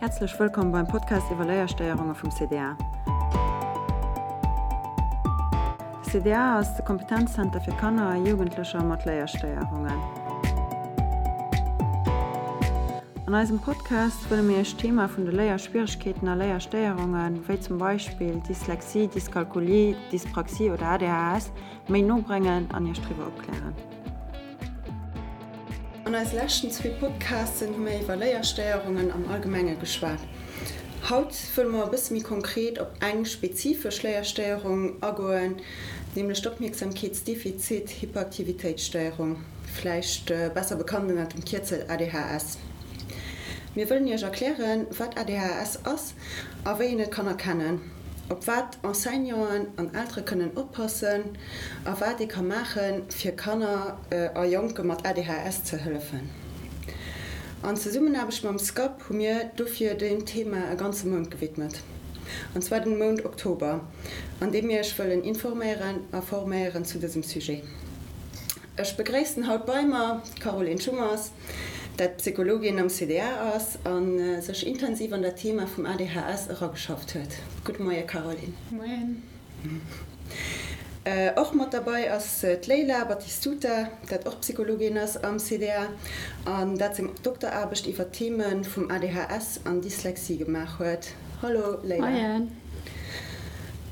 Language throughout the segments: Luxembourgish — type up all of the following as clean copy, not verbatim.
Häerzlech wëllkomm beim Podcast iwwer Léierstéierunge vum CDA. De CDA ass de Kompetenzzenter fir Kanner a Jugendlecher mat Léierstéierungen. An eisem Podcast wëlle mir Iech d'Thema vun de Léierschwieregkeeten a Léierstéierungen, wéi zum Beispill Dyslexie, Dyskalkulie, Dyspraxie oder ADHS, méi no bréngen an Iech driwwer opklären. An eise leschten zwee Podcasten hu mir iwwer Léierstéierungen am Allgemenge geschwat. Haut wëlle mer e bësse méi konkret op eng spezifesch Léierstéierung agoen, nämlech d'Opmierksamkeetsdefizit-Hyperaktivitéitsstéierung, vläicht besser bekannt ënner dem Kierzel ADHS. Mir wëllen Iech erklären, wat ADHS ass a wéi een et kann erkennen, op wat Enseignanten an Eltere kënnen oppassen a wat ee ka maachen, fir Kanner a Jonke mat ADHS ze hëllefen. An Zesummenaarbecht mam SCAP hu mir dofir deem Thema e ganze Mount gewidmet, an zwar den Mount Oktober, an deem mir Iech wëllen informéieren a forméieren zu dësem Sujet. Ech begréissen haut bei mer d'Caroline Schummers, dat Psychologin am CDA ass a sech intensiv an dat Thema vum ADHS erageschafft huet. Gudde Moie Caroline. Moien. Och mat derbei ass d'Leila Battistuta, dat och Psychologin ass am CDA an dat seng Dokteraarbecht iwwer d'Theme vum ADHS an Dyslexie gemaach huet. Hallo Leila. Moien.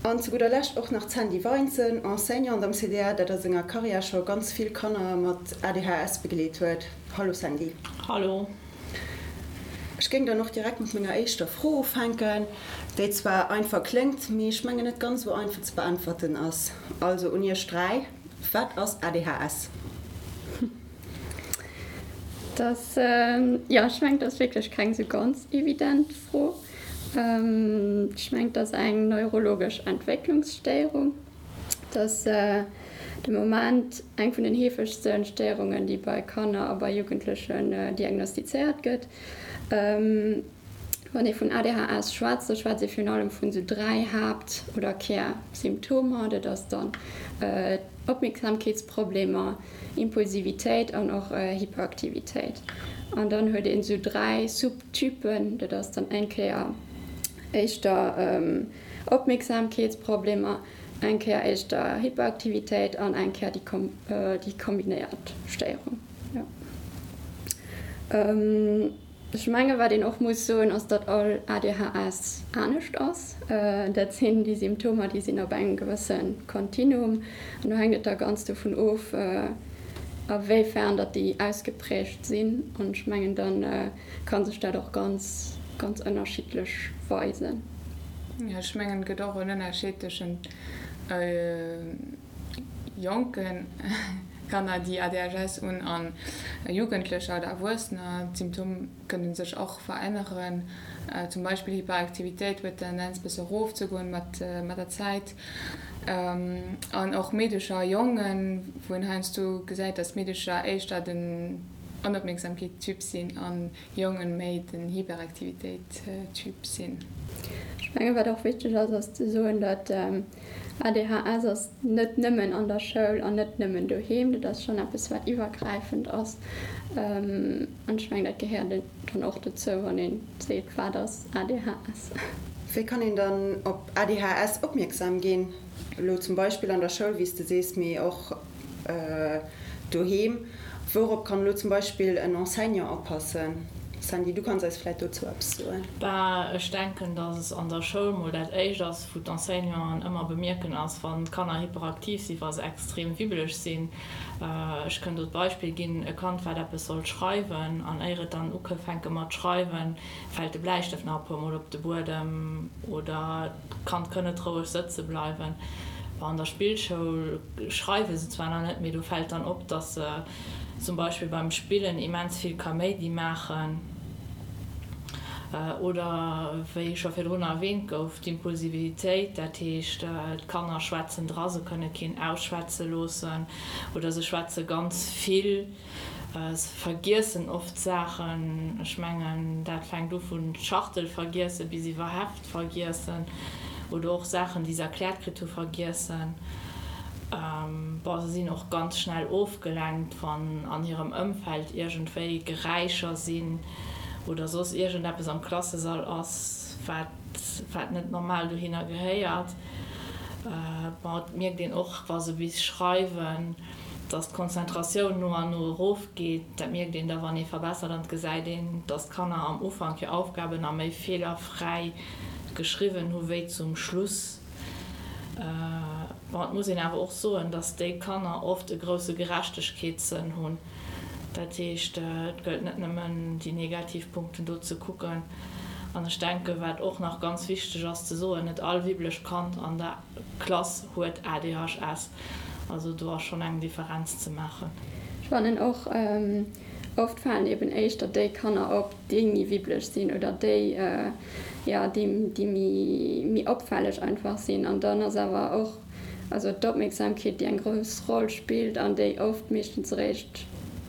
An zu gudder Lescht och nach d'Sandy Weinzen, Enseignante am CDA, dat a senger Karriär scho ganz vill Kanner mat ADHS begleet huet. Hallo Sandy. Hallo. Ech géing dann och direkt mat menger éischter Fro ufänken, déi zwar einfach kléngt, mee ech mengen net ganz esou einfach ze beäntwerten ass. Also un iech 3, Wat ass ADHS? Dat, jo, ech mengen, dat ass wierklech keng esou ganz evident Fro. Ech mengen, et ass eng neurologesch Entwécklungsstéierung. Et ass de Moment eng vun den heefegste Stéierungen, déi bei Kanner a bei Jugendlechen diagnostizéiert gëtt. Wann ee vun ADHS schwätzt, da schwätzt ee virun allem vun esou 3 Haapt oder Kärsymptomer. Dat ass dann Opmierksamkeetsproblemer, Impulsivitéit an och Hyperaktivitéit. An dann huet een esou 3 Subtypen, dat ass dann eng Kéier éischter Opmierksamkeetsproblemer, eng Kéier éischter Hyperaktivitéit an eng Kéier déi kombinéiert Stéierung. Ech menge wat een och muss soen, ass datt all ADHS anescht ass. Dat sinn déi Symptomer, déi sinn op engem gewësse Kontinuum an do hänkt et da ganz dovun of, a wéi fern datt déi ausgeprägt sinn. An ech mengen da ka sech dat och ganz, ganz ënnerschiddlech weisen. Jo, ech mengen et gëtt och en Ënnerscheed tëschent jonke Kanner, déi ADHS hunn, an Jugendlecher oder Erwuessener. D'Symptome kënne sech och veränneren. Zum Beispill Hyperaktivitéit huet d'Tendenz bësse erofzegoen mat der Zäit. An och Meedecher a Jongen, wou een heiansdo gesäit, datt Meedecher éischter den Onopmierksamkeet-Typ sinn an Jongen méi den Hyperaktivitéit-Typ sinn. Ech mengen, wat och wichteg ass, ass ze soen, datt ADHS ass net nëmmen an der Schoul an net nëmmen doheem. Dat ass schonn eppes, wat iwwergräifend ass. An ech mengen, dat gehéiert dann och dozou, wann ee seet, wat ass ADHS. Wéi kann een dann op ADHS opmierksam ginn? Elo zum Beispill an der Schoul, wéi s de sees, mee och doheem. Wourop kann elo zum Beispill en Enseignant oppassen? Sandy, du kanns eis vläit dozou eppes soen. Bah, ech denken, dass es an der Schoul mol dat éischt ass, wou d'Enseignanten ëmmer bemierken ass, wann d'Kanner hyperaktiv sinn, wa se extrem wibbeleg sinn. Ech kënn do d'Beispill ginn, e Kand, wat eppes sollt schreiwen, an éier et dann ukëfänke mat schreiwen, fält de Bläistëft nach e puermol op de Buedem oder d'Kand kënn net roueg sëtze bleiwen. An der Spillschoul schreiwe se zwar nach net, mee do fält dann op, dass se zum Beispill beim Spillen immens vill Kaméidi maachen oder, wéi scho virdrun erwähnt gouf, d'Impulsivitéit, dat heescht, d'Kanner schwätzen dra, se kënne keen ausschwätze loossen oder se schwätze ganz vill. Se vergiessen oft Saachen. Ech mengen, dat fänkt u vun Schachtel vergiessen bis iwwer Heft vergiessen oder och Saachen, déi se erkläert kritt hu vergiessen. Bon, se sinn och ganz schnell ofgelenkt, wann an hirem Ëmfeld iergendwéi Geräischer sinn. Oder soss iergendeppes am Klassesall ass, wat, wat net normal dohinner gehéiert. Bon, et mierkt een och, wa se bis schreiwen, dass d'Konzentratioun no an no erofgeet. Dat mierkt een da, wann ee verbessert an et gesäit een, dass d'Kanner am Ufank hir Aufgaben a méi feelerfräi geschriwwen hu wéi zum Schluss. Bon, et muss een awer och soen, dass déi Kanner oft e grousse Gerechtegkeetssënn hunn. Dat heescht, et gëllt net nëmmen déi negativ Punkten do ze kucken. An ech denken, wat och nach ganz wichteg ass ze soen, net all wibblecht Kand an der Klass huet ADHS. Also do ass schonn eng Differenz ze maachen. Ech fannen och, oft falen eben éischter déi Kanner op, déi méi wibbeleg sinn oder déi, jo, déi, déi méi, méi opfälleg einfach sinn. An dann ass awer och, also d'Opmierksamkeet, déi eng grouss Roll spillt an déi oft meeschtens eréischt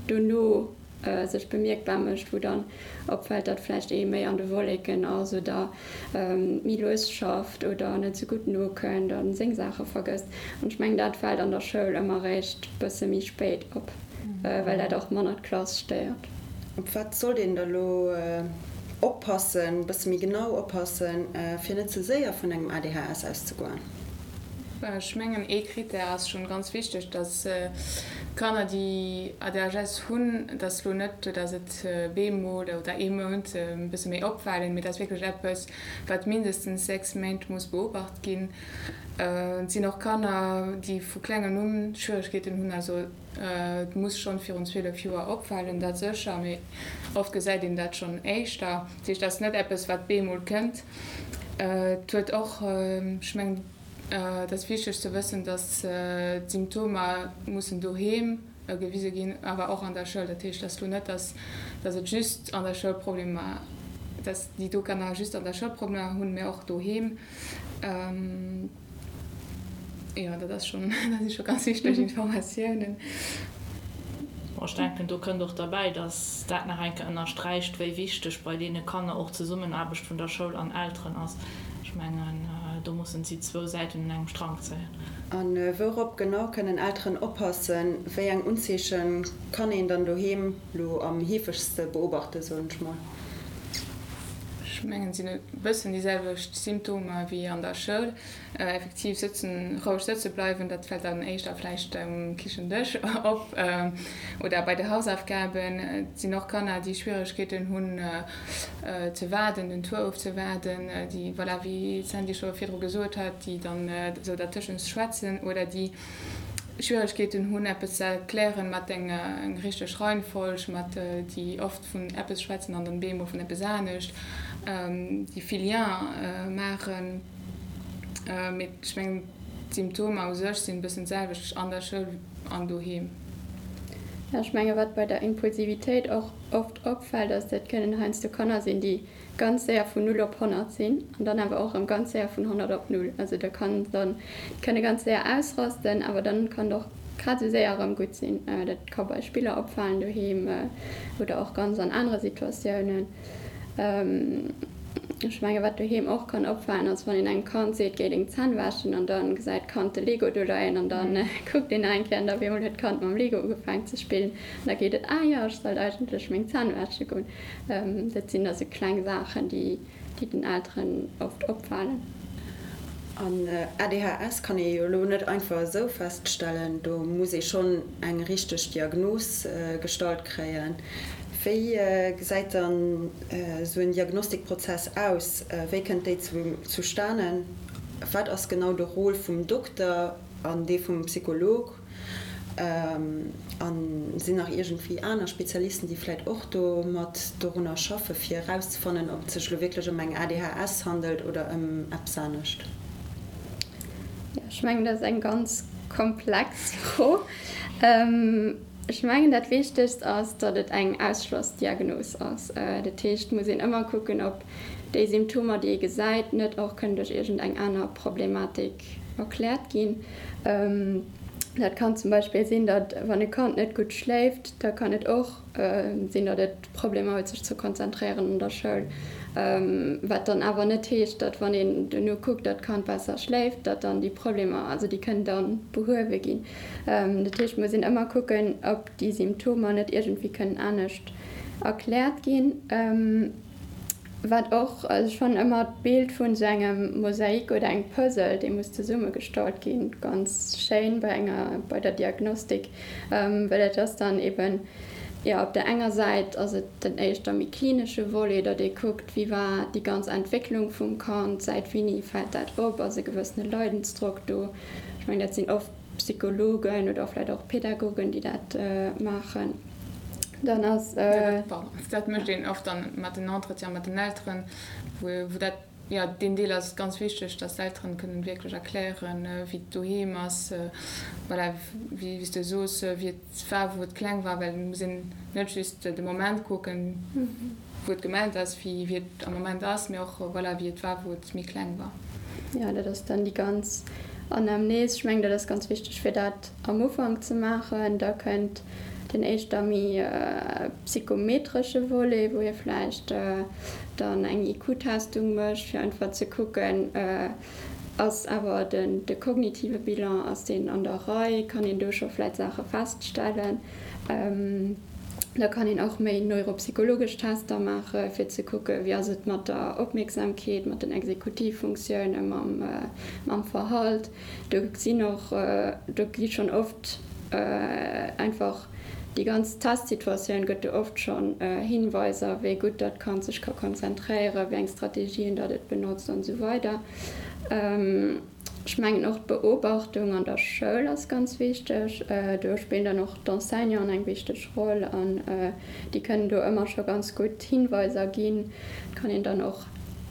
dono sech bemierkbar mécht, wou dann opfält, datt vläicht ee méi an de Wolleken ass oder méi lues schafft oder net esou gutt nokënnt a seng Saache vergësst. An ech mengen, dat fält an der Schoul ëmmer eréischt bësse méi spéit op, well dat och manner d'Klass stéiert. Op wat sollt een da lo oppassen, bësse méi genau oppassen, fir net ze séier vun engem ADHS auszegoen? Ech mengen ee Critère ass schonn ganz wichteg, dass d'Kanner déi ADHS hunn, dass lo net, dass et bemol oder ee Mount e bësse méi opfalen, mee dat ass wierklech eppes wat mindestens 6 Méint muss beobacht ginn. Et sinn och Kanner déi vu klengen un Schwieregkeeten hunn, also et muss schonn virun 12 Joer opfalen, dat sécher, mee oft gesäit een dat schonn éischter. Dat heescht, dat ass net eppes wat bemol kënnt. Et huet och, ech mengen, et ass wichteg ze wëssen, datt d'Symptomer mussen doheem gewise ginn, awer och an der Schoul. Dat heescht, et ass lo net, datt datt et just an der Schoul Problemer, datt déi do Kanner just an der Schoul Problemer hunn, mä och doheem. Jo, dat ass schonn, dat si scho ganz wichteg Informatiounen. Bon, ech denken, do kënnt och derbäi, dass dat nach eng Kéier ënnersträicht, wéi wichteg bei deene Kanner och d'Zesummenaarbecht vun der Schoul an Elteren ass. Ech mengen, do mussen si zwou Säiten un engem Strank zéien. A wourop genau kënnen Elteren oppassen? Wéi eng Unzeeche kann een dann doheem lo am heefegste beobachten, soen ech mol? Ech mengen, et sinn e bëssen déi selwecht Symptomer wéi an der Schoul. Effektiv sëtzen, roueg sëtze bleiwen, dat fält dann éischter vläicht um Kichendësch op oder bei de Hausaufgaben. Et sinn och Kanner, déi Schwieregkeeten hunn ze waarden, den Tour ofzewaarden, déi, voilà, wéi d'Sandy scho virdru gesot hat, déi dann esou dertëschent schwätzen oder déi Schwieregkeeten hunn, eppes ze erklären mat enger richteg Reihenfolg, mat déi oft vun eppes schwätzen an dann bemol vun eppes anescht, déi vill Lien maachen. Mee ech mengen, d'Symptomer u sech sinn e bëssen d'selwecht an der Schoul an doheem. Jo, ech menge wat bei der Impulsivitéit och oft opfält, ass, dat kënnen heiansdo Kanner sinn, déi ganz séier vun null op 100 sinn an dann awer och erëm ganz séier vun 100 op null. Also da kann dann, déi kënne ganz séier ausrasten, awer dann kann et och grad esou séier erëm gutt sinn. Dat ka bei Spiller opfalen doheem oder och ganz an anere Situatiounen. Ech menge wat doheem och kann opfalen ass, wann een engem Kand seet, géi deng Zänn wäschen an dann gesäit d'Kand de Lego do leien an dann kuckt een nach eng Kéier an da op eemol huet d'Kand mam Lego ugefaangen ze spillen an da geet et, ah jo, ech sollt eigentlech meng Zänn wäsche goen. Dat sinn da sou kleng Saachen, déi déi den Elteren oft opfalen. An ADHS kann ee jo elo net einfach esou feststellen, do muss ee schonn eng richteg Diagnos gestallt kréien. Wéi gesäit dann esou en Diagnostikprozess aus? Wéi kënnt déi zustanen? Wat ass genau de Rôle vum Dokter an dee vum Psycholog? A sinn nach iergendwéi aner Spezialisten, déi vläit och do mat dorunner schaffe fir erauszefannen, ob et sech elo wierklech ëm eng ADHS handelt oder ëm eppes anescht? Jo, ech mengen, dat ass eng ganz komplex Fro. Ech mengen, dat Wichtegst ass, datt et eng Ausschlossdiagnos ass. Dat heescht, et muss een ëmmer kucken, ob déi Symptomer, déi ee gesäit, net och kënnen duerch iergendeng aner Problematik erkläert ginn. Dat kann zum Beispill sinn, datt wann e Kand net gutt schléift, da kann et och sinn, datt et Problemer huet sech ze konzentréieren an der Schoul. Wat dann awer net heescht, datt wann een duerno kuckt, datt d'Kand besser schléift, datt dann déi Problemer, also déi kënnen da behuewe ginn. Dat heescht, et muss een ëmmer kucken, ob déi Symptomer net iergendwéi kënnen anescht. erkläert ginn. Wat och, also ech fannen ëmmer d'Bild vun esou engem Mosaik oder engem Puzzle, dee muss zesummegestallt ginn, ganz schéin bei enger, bei der Diagnostik, well et ass dann eben, jo, op der enger Säit ass et den éischter méi klinesche Volet, datt ee kuckt, wéi war déi ganz Entwécklung vum Kand, säit wéini fält dat op, ass e gewëssene Leidensdrock do. Ech mengen, dat sinn oft Psychologen oder vläicht och Pädagogen, déi dat maachen. Dann ass. Dat mécht een oft dann mat den Entretiene mat den Elteren, wou dat, jo, deen Deel ass ganz wichteg, dass d'Elteren kënnen wierklech erklären, wéi et doheem ass, voilà, wéi s de soos, wéi et war, wou et kleng war, well et muss een net just de Moment kucken, wou et gemellt ass, wéi et am Moment ass, mee och, voilà, wéi et war, wou et méi kleng war. Jo, dat ass dann déi ganz Anamnes. Ech mengen, dat ass ganz wichteg, fir dat am Ufank ze maachen. Da kënnt den éischter méi psychometresche Volet, wou ee vläicht dann eng IQ-Testung mécht, fir einfach ze kucken, ass awer de kognitive Bilan, ass deen an der Rei, kann een do scho vläicht Saache feststellen. Da kann een och méi neuropsychologesch Tester maache fir ze kucke wéi ass et mat der Opmierksamkeet, mat den Exekutivfunktioune, mam Verhalt. Do sinn och, do gi schonn oft einfach déi ganz Testsituatioun gëtt do oft schonn Hinweiser, wéi gutt datt d'Kand sech ka konzentréieren, wéi eng Strategien datt et benotzt an esou weider. Ech mengen och d'Beobachtung an der Schoul ass ganz wichteg. Do spillen dann och d'Enseignanten eng wichteg Roll an déi kënnen do ëmmer scho ganz gutt Hinweiser ginn. Et kann een dann och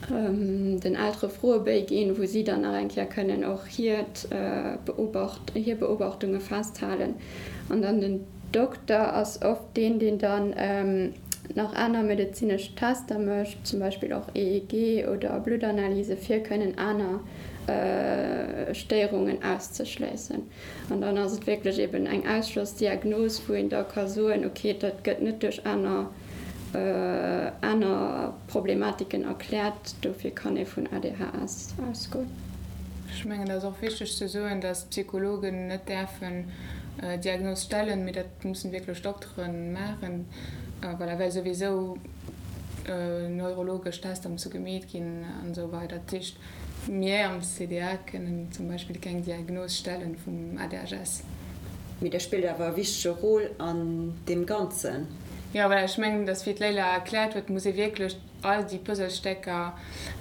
den Eltere Froebéi ginn, wou si dann nach eng Kéier kënnen och hiert Beobacht, hir Beobachtunge festhalen. An dann den Dokter ass oft deen, deen dann nach aner medezinesch Tester mécht, zum Beispill och EEG oder Bluttanalyse fir kënnen aner Stéierungen auszeschléissen. An dann ass et wierklech eben eng Ausschlossdiagnos, wou een da ka soen, okay, dat gëtt net duerch aner aner Problematiken erkläert, dofir kann ee vun ADHS ausgoen. Ech mengen, et ass och wichteg ze soen, dass d'Psychologen net däerfen Diagnos stellen, mee dat mussen wierklech Dokteren maachen, voilà, well souwisou neurologesch Tester musse gemeet ginn an esou weider. Dat heescht, mir am CDA kënnen zum Beispill keng Diagnos stellen vum ADHS. Mee der spillt awer e wichtege Rôle an deem Ganzen. Jo, voilà, ech mengen, dass, wéi d'Leila erkläert huet, muss ee wierklech all déi Puzzlestécker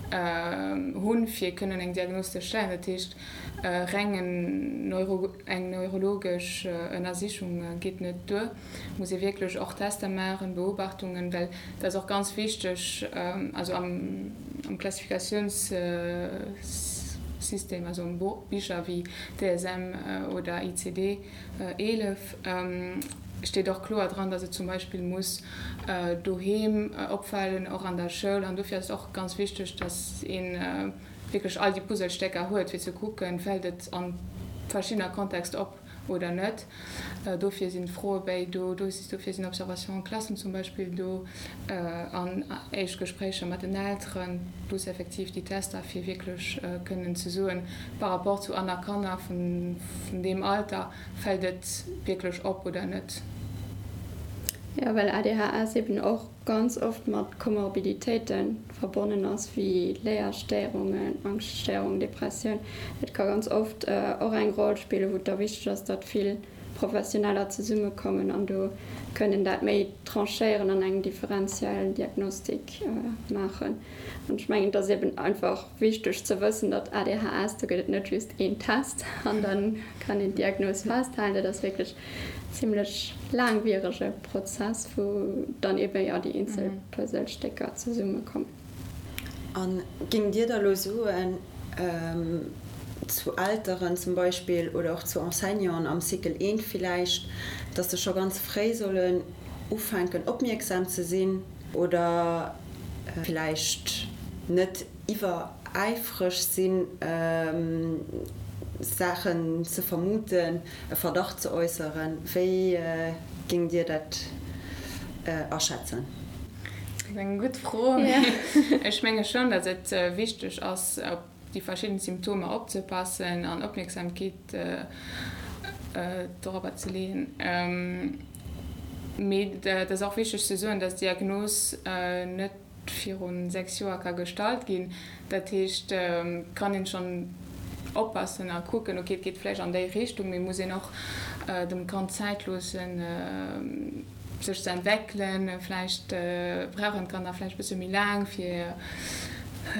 hunn, fir kënnen eng Diagnos ze stellen. Dat heescht, reng eng neurologesch Ënnersichung geet net duer. Et muss ee wierklech och Tester maachen, Beobachtungen, well dat ass och ganz wichteg, also am Klassifikatiounssystem, also am Bicher wéi DSM oder ICD 11, steet och kloer dran, dass et zum Beispill muss doheem opfalen, och an der Schoul. An dofir ass et och ganz wichteg, dass ee wierklech all déi Puzzlestécker huet, fir ze kucken, fält et a verschiddener Kontext op oder net. Dofir sinn d'Froebéi do, dofir sinn Observations en classe zum Beispill do an éischt Gespréicher mat den Elteren, plus effektiv déi Tester, fir wierklech kënnen ze soen, par rapport zu aner Kanner vun deem Alter, Fält et wierklech op oder net? Jo, well ADHS eben och ganz oft mat Komorbiditéite verbonnen ass, wéi Léierstéierungen, Angschtstéierungen, Depressioun. Dat ka ganz oft och eng Roll spillen, wou et da wichteg ass, datt vill Professioneller zesummekommen an do kënnen dat méi tranchéieren an eng differenziell Diagnostik maachen. An ech mengen, et ass eben einfach wichteg ze wëssen, datt ADHS, do gëtt et net just een Test an da kann een d'Diagnos festhalen. Dat ass wierklech en zimlech laangwierege Prozess, wou dann eben, jo, déi eenzel Puzzlestécker zesummekommen. A géingt Dir da elo soen, zu Elteren zum Beispill oder och zu Enseignanten am Cycle I villäicht, datt se scho ganz fréi sollen ufänken opmierksam ze sinn oder villäicht net iwweräifreg sinn, Saachen ze vermuten, e Verdacht ze äusseren. Wéi géingt Dir dat aschätzen? Dat ass eng gutt Fro. Ech menge schonn, datt et wichteg ass, op déi verschidden Symptomer opzepassen an Opmierksamkeet dorobber ze leeën. Mee et ass och wichteg ze soen, dass d'Diagnos net viru 6 Joer ka gestallt ginn. Dat heescht, et kann een schonn oppassen a kucken, ok, et geet vläicht an déi Richtung, mee muss een och dem Kand Zäit loossen, sech ze entweckelen. Vläicht brauchen d'Kanner vläicht e bësse méi laang, fir,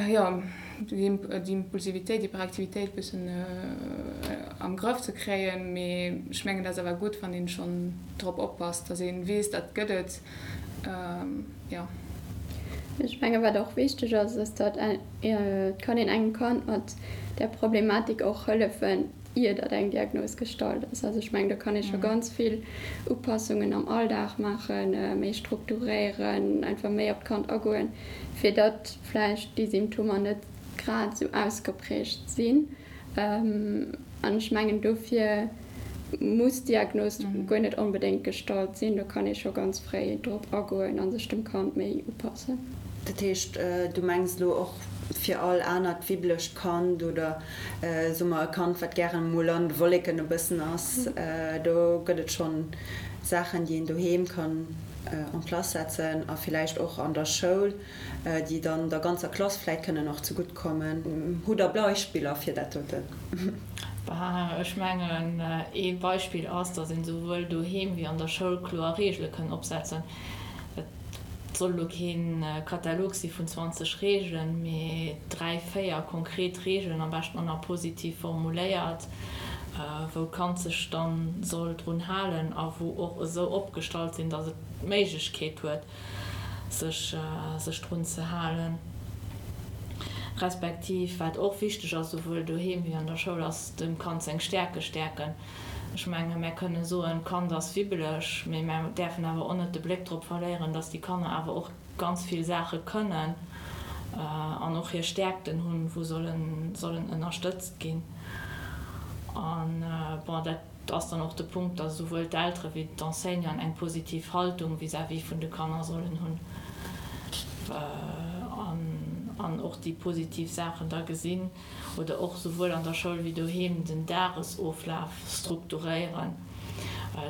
jo, déi Impulsivitéit, Hyperaktivitéit e bëssen am Grëff ze kréien. Mee ech mengen, dat ass awer gutt, wann een schonn drop oppasst, datt ee weess, dat gëtt et, jo. Ech menge wat och wichteg ass, ass datt et kann een engem Kand mat där Problematik och hëllefen, ier datt eng Diagnos gestallt ass. Also ech mengen, do kann ee scho ganz vill Upassungen am Alldag maachen, méi strukturéieren, einfach méi op d'Kand agoen, fir datt vläicht déi Symptomer net grad esou ausgeprägt sinn. An ech mengen, dofir muss d'Diagnos guer net onbedéngt gestallt sinn. Do kann ee scho ganz fréi drop agoen a sech dem Kand méi upassen. Dat heescht, du mengs elo och fir all anert wibblecht Kand oder soe mer e Kand, wat gären emol an de Wolleken e bëssen ass, do gëtt et schonn Saachen, déi een doheem kann en place setzen a villäicht och an der Schoul, déi dann der ganzer Klass vläit kënnen och zegutt kommen. Hutt Der Beispiller fir dat doten? Bah, ech mengen, ee Beispill ass, datt een esouwuel doheem wéi an der Schoul kloer Reegele kënn opsetzen. Et soll elo kee Katalog si vun 20 Reegelen, mee 3, 4 konkret Reegelen, am beschten och nach positiv formuléiert, wou d'Kand sech dann soll drun halen a wou och esou opgestallt sinn, datt et d'Méiglechkeet huet, sech sech drun ze halen. Respektiv, wat och wichteg ass, souwuel doheem wéi an der Schoul, ass dem Kand seng Stäerke stäerken. Ech menge mär kënne soen, d'Kand ass wibbeleg, mee mär däerfen awer och net de Bléck drop verléieren, datt déi Kanner awer och ganz vill Saache kënnen an och hir Stäerkten hunn, wou sollen sollen ënnerstëtzt ginn. An bon, dat ass dann och de Punkt, datt esouwuel d'Eltere wéi d'Enseignanten eng positiv Haltung vis-à-vis vun de Kanner sollen hunn an och déi positiv Saachen da gesinn. Oder och souwuel an der Schoul wéi doheem den Dagesoflaf strukturéieren.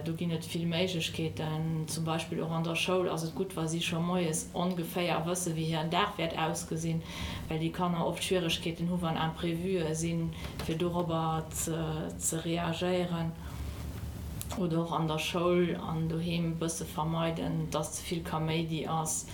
Do ginn et vill Méiglechkeeten. Zum Beispill och an der Schoul ass et gutt, wa si scho moies ongeféier wësse wéi hiren Dag wäert ausgesinn, well déi Kanner oft Schwieregkeeten hu wann Imprévuë sinn, fir dorobber ze reagéieren. Oder och an der Schoul an doheem e bësse vermeiden, dass ze vill Kaméidi ass.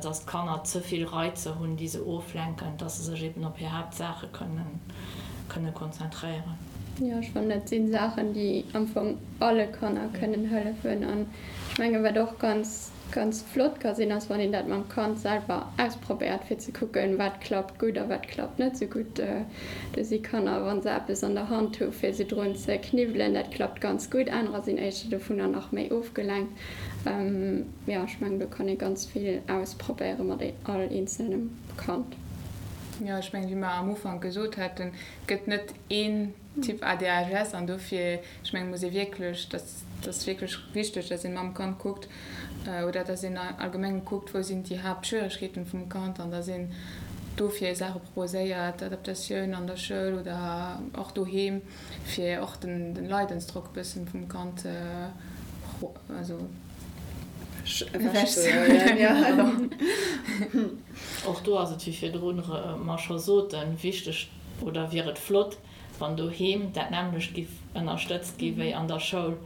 dass d'Kanner ze vill Reizer hunn, déi se oflenken, dass se sech eben op hir Haaptsaache kënne konzentréieren. Jo, ech fannen, dat si Saachen, déi am Fong alle Kanner kënnen hëllefen. An ech mengen, wat och ganz, ganz flott ka sinn, ass, wann een dat mam Kand selwer ausprobéiert, fir ze kucken, wat klappt gutt a wat klappt net esou gutt. Do si Kanner, wa se eppes an der Hand hu fir se drun ze kniwwelen, dat klappt ganz gutt. Anerer sinn éischter dovunner nach méi ofgelenkt. Jo, ech mengen do kann ee ganz vill ausprobéiere mat all eenzelnem Kand. Jo, ech mengen, wéi mer am Ufank gesot haten, et gëtt net een Typ ADHS an dofir, ech mengen, muss ee wierklech, dat ass wierklech wichteg, dass een mam Kand kuckt oder dass een allgemeng kuckt, wou sinn déi Haaptschwieregkeeten vum Kand an dass een dofir Saache proposéiert, Adaptatioun an der Schoul oder och doheem. Fir och den Leidensdrock e bëssen vum Kand also ewech ze huelen. Och do ass et, wéi virdrun mer scho soten, wichteg oder wier et flott, wann doheem dat nämmlecht giff ënnerstëtzt gi wéi an der Schoul.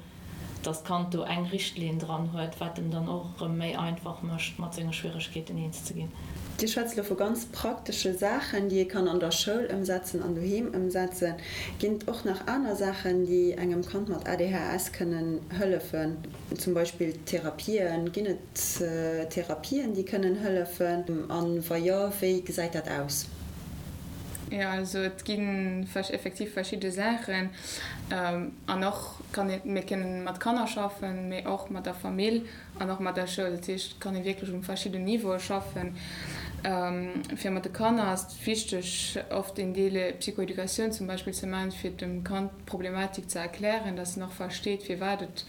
dass d'Kand do eng Richtlinn dran huet, wat em dann och erëm méi einfach mécht, mat senge Schwieregkeeten eens ze ginn. Dir schwätzt elo vu ganz praktesche Saachen, déi ee kann an der Schoul ëmsetzen an doheem ëmsetzen. Ginn et och nach aner Saachen, déi engem Kand mat ADHS kënnen hëllefen? Zum Beispill Therapien. Ginn et Therapien, déi kënnen hëllefen? A wa jo, wéi gesäit dat aus? Jo, also et gi effektiv verschidde Saachen. An och kann een, mir kënnen mat Kanner schaffen, mee och mat der Famill an och mat der Schoul. Dat heescht, et kann ee wierklech um verschidden Niveaue schaffen. Fir mat de Kanner ass et wichteg, oft een Deel Psychoeducatioun zum Beispill ze maachen, fir dem Kand d'Problematik ze erklären, dass en och versteet, firwat et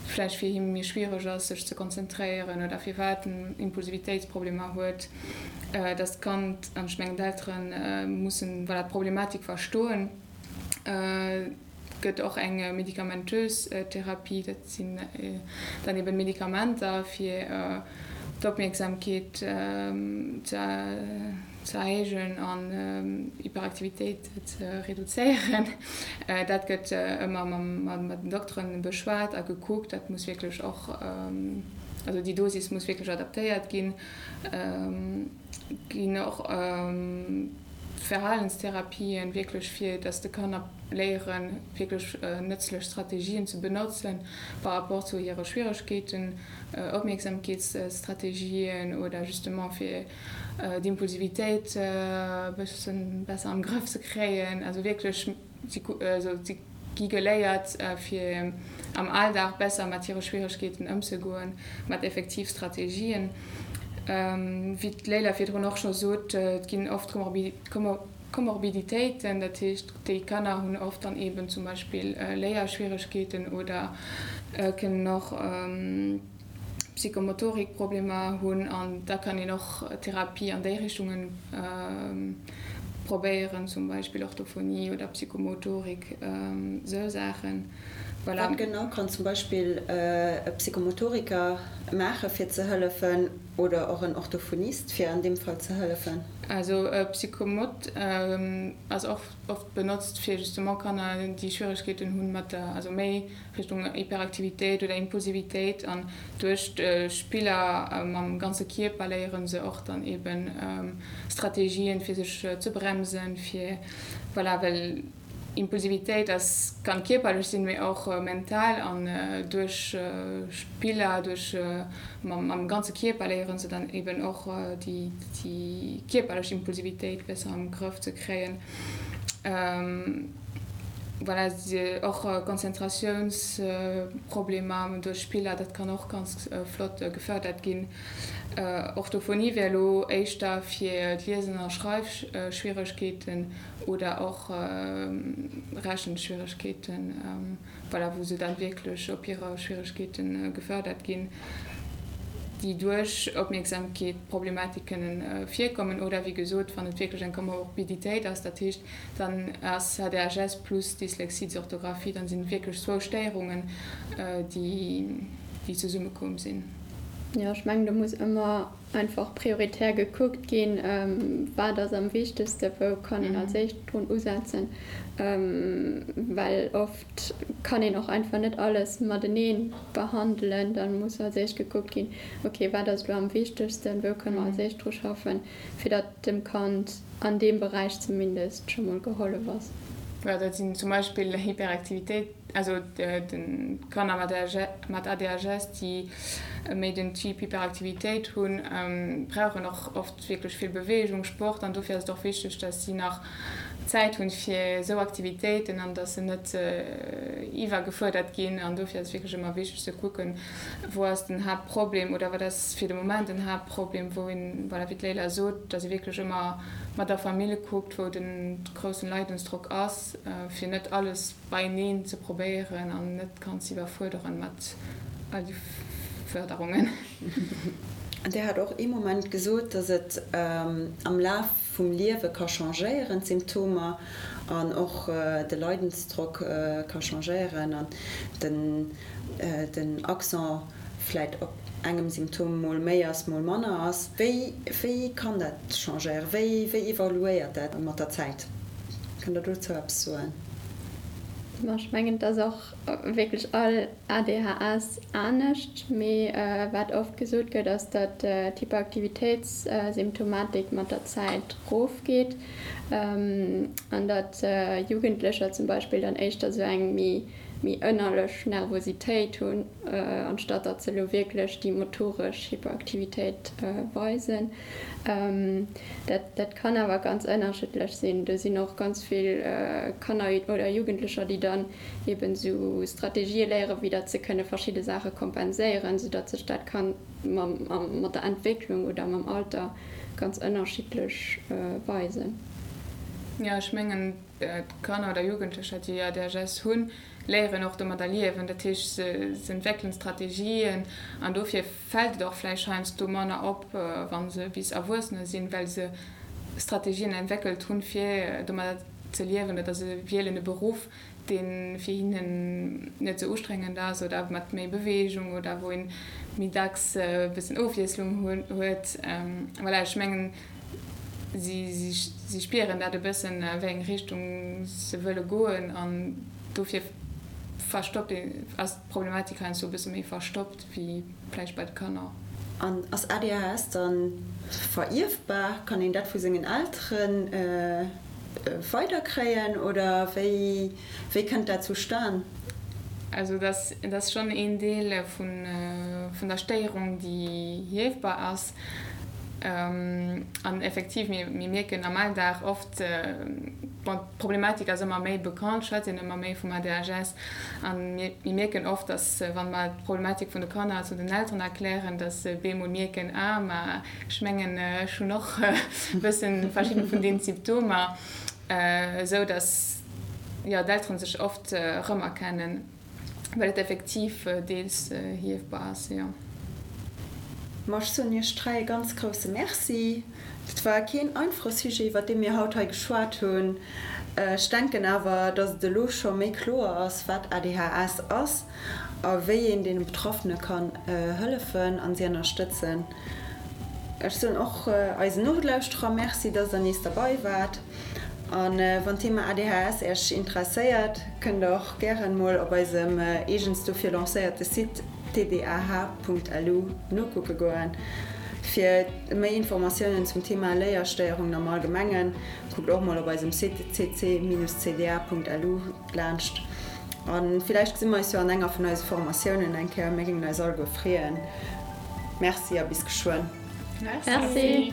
vläicht fir him méi schwiereg ass, sech ze konzentréieren oder firwat en Impulsivitéitsproblemer huet, dass d'Kand, an ech mengen d'Eltere mussen, voilà, d'Problematik verstoen. gëtt och eng medikamentös Therapie, dat sinn dann eben Medikamenter fir d'Opmierksamkeet ze erhéijen an Hyperaktivitéit ze reduzéieren. Dat gëtt ëmmer mat den Dokteren beschwat a gekuckt. Dat muss wierklech och, also déi Dosis muss wierklech adaptéiert ginn. Ginn och Verhalenstherapien wierklech fir dass de Kanner léieren wierklech nëtzlech Strategien ze benotzen par rapport zu hire Schwieregkeeten, Opmierksamkeetsstrategien oder justement fir d'Impulsivitéit e bëssen besser am Grëff ze kréien. Also wierklech si gi geléiert fir am Alldag besser mat hire Schwieregkeeten ëmzegoen, mat effektiv Strategien. Wéi d'Leila virdrun och scho sot, et ginn oft Komorbiditéiten, dat heescht déi Kanner hunn oft dann eeben zum Beispill Léierschwieregkeeten oder kënnen och Psychomotorikproblemer hunn an da kann een och Therapie an déi Richtungen probéieren, zum Beispill Orthophonie oder Psychomotorik, sou Saachen. Voilà. Wat genau kann zum Beispill e Psychomotoriker maache fir ze hëllefen oder och en Orthophonist fir an deem Fall ze hëllefen? Also e Psychomot ass och oft benotzt fir justement Kanner déi Schwieregkeeten hunn mat der, also méi Richtung Hyperaktivitéit oder Impulsivitéit an duerch d'Spiller mam ganze Kierper léiere se och dann eben Strategien fir sech ze bremsen, fir voilà, well Impulsivitéit ass kann kierperlech sinn, mee och mental an duerch Spiller, duerch mam ganze Kierper léiere se dann eben och déi kierperlech Impulsivitéit besser am Grëff ze kréien. Voilà, och Konzentratiounsproblemer duerch Spiller, dat kann och ganz flott gefërdert ginn. Orthophonie wär elo éischter fir d'Liesen a Schreifschwieregkeeten oder och Rechenschwieregkeeten, voilà, wou se dann wierklech op hire Schwieregkeete gefërdert ginn, déi duerch Opmierksamkeet Problematik kënnen virkommen oder, wéi gesot, wann et wierklech eng Komorbiditéit ass, dat heescht, dann ass ADHS plus Dyslexie, Dysorthographie, dann sinn et wierklech zwou Stéierungen, déi zesummekomm sinn. Jo, ech mengen, do muss ëmmer einfach prioritär gekuckt ginn, wat ass am wichtegsten, wou kann een als éischt drun usetzen, well oft kann een och einfach net alles matenee behandelen. Da muss als éischt gekuckt ginn, okay, wat ass elo am wichtegsten, wou kënne mer als éischt dru schaffen, fir datt dem Kand an deem Beräich zumindest scho mol gehollef ass. Jo, dat sinn zum Beispill Hyperaktivitéit, also d'Kanner mat ADHS, déi méi den Typ Hyperaktivitéit hunn, brauchen och oft wierklech vill Beweegung, Sport an dofir ass et och wichteg, datt si nach Zäit hunn fir esou Aktivitéiten an datt se net iwwergefuerdert ginn an dofir ass et wierklech ëmmer wichteg ze kucken, wou ass den Haaptproblem oder wat ass fir de Moment den Haaptproblem, wou een, voilà, wéi d'Leila sot, datt ee wierklech ëmmer mat der Famill kuckt, wou den groussen Leidensdrock ass, fir net alles beieneen ze probéieren an net d'Kand ze iwwerfuerderen mat all de Fërderungen. Dir hat och ee Moment gesot, datt et am Laf vum Liewe ka changéieren, d'Symptomer, an och de Leidensdrock ka changéieren an den den Accent vläit op engem Symptom mol méi ass, mol manner ass. Wéi, wéi kann dat changéieren? Wéi, wéi evoluéiert dat mat der Zäit? Kënnt Der dozou eppes soen? Ma ech mengen, et ass och wierklech all ADHS anescht. Mee wat oft gesot gëtt, ass, datt d'Hyperaktivitéitssymptomatik mat der Zäit rofgeet an datt Jugendlecher zum Beispill dann éischter sou eng méi méi ënnerlech Nervositéit hunn, anstatt datt se elo wierklech déi motoresch Hyperaktivitéit weisen. Dat, dat kann awer ganz ënnerschiddlech sinn. Do sinn och ganz vill Kanner oder Jugendlecher, déi dann eben esou Strategië léieren, wéi datt se kënne verschidde Saache kompenséieren, soudatt sech dat kann mam, mat der Entwécklung oder mam Alter ganz ënnerschiddlech weisen. Jo, ech mengen, D'Kanner oder Jugendlecher, déi ADHS hunn, léieren och domadder liewen. Dat heescht, se entwéckelen Strategien an dofir fält et och vläicht heiansdo manner op, wa se bis Erwuessener sinn, well se Strategien entwéckelt hunn, fir domadder. ze liewen oder se wielen e Beruff, dee fir hinnen net esou ustrengend ass oder mat méi Beweegung oder wou een méi dacks e bëssen Ofwiesslung huet. Voilà, ech mengen, si spieren dat e bëssen, a wéi eng Richtung se wëlle goen an dofir verstoppt een, ass d'Problematik heiansdo e bësse méi verstoppt wéi vläicht bei de Kanner. An ass ADHS dann verierfbar? Kann een dat vu sengen Elteren weiderkréien oder wéi wéi kënnt dat zustan? Also dat ass schonn een Deel vun der Stéierung, déi ierfbar ass. An effektiv, mir mierken am Alldag oft, bon, d'Problematik ass ëmmer méi bekannt, schwätzt een ëmmer méi vum ADHS. A mir mierken oft, datt wa mer d'Problematik vun de Kanner zu den Elteren erklären, datt se bemol mierken, ah, ma ech mengen, ech hunn och e bëssen verschidden vun deenen Symptomer, esou datt, jo, d'Elteren sech oft erëmerkennen. Well et effektiv deels hiefbar ass, jo. Ma ech soen Iech 3 e ganz grousse Merci. Et war keen einfache Sujet, iwwer dee mir haut hei geschwat hunn. Ech denken awer, dass et elo scho méi kloer ass, wat ADHS ass a wéi een deene Betraffene kann hëllefen a si ënnerstëtzen. Ech soen och eisen Nolauschterer Merci, dass der nees derbei waart. A wann d'Thema ADHS Äech interesséiert, kënnt der och gären mol op eisem eegens dofir lancéierte Site tdah.lu nokucke goen. Fir méi Informatiounen zum Thema Léierstéierungen am Allgemengen, kuckt och mol op eisem Site cc-cda.lu laanscht. A villäicht gesi mer eis jo an enger vun eise Formatiounen eng Kéier. Mir géingen eis alleguer freeën. Merci a bis geschwënn. Merci.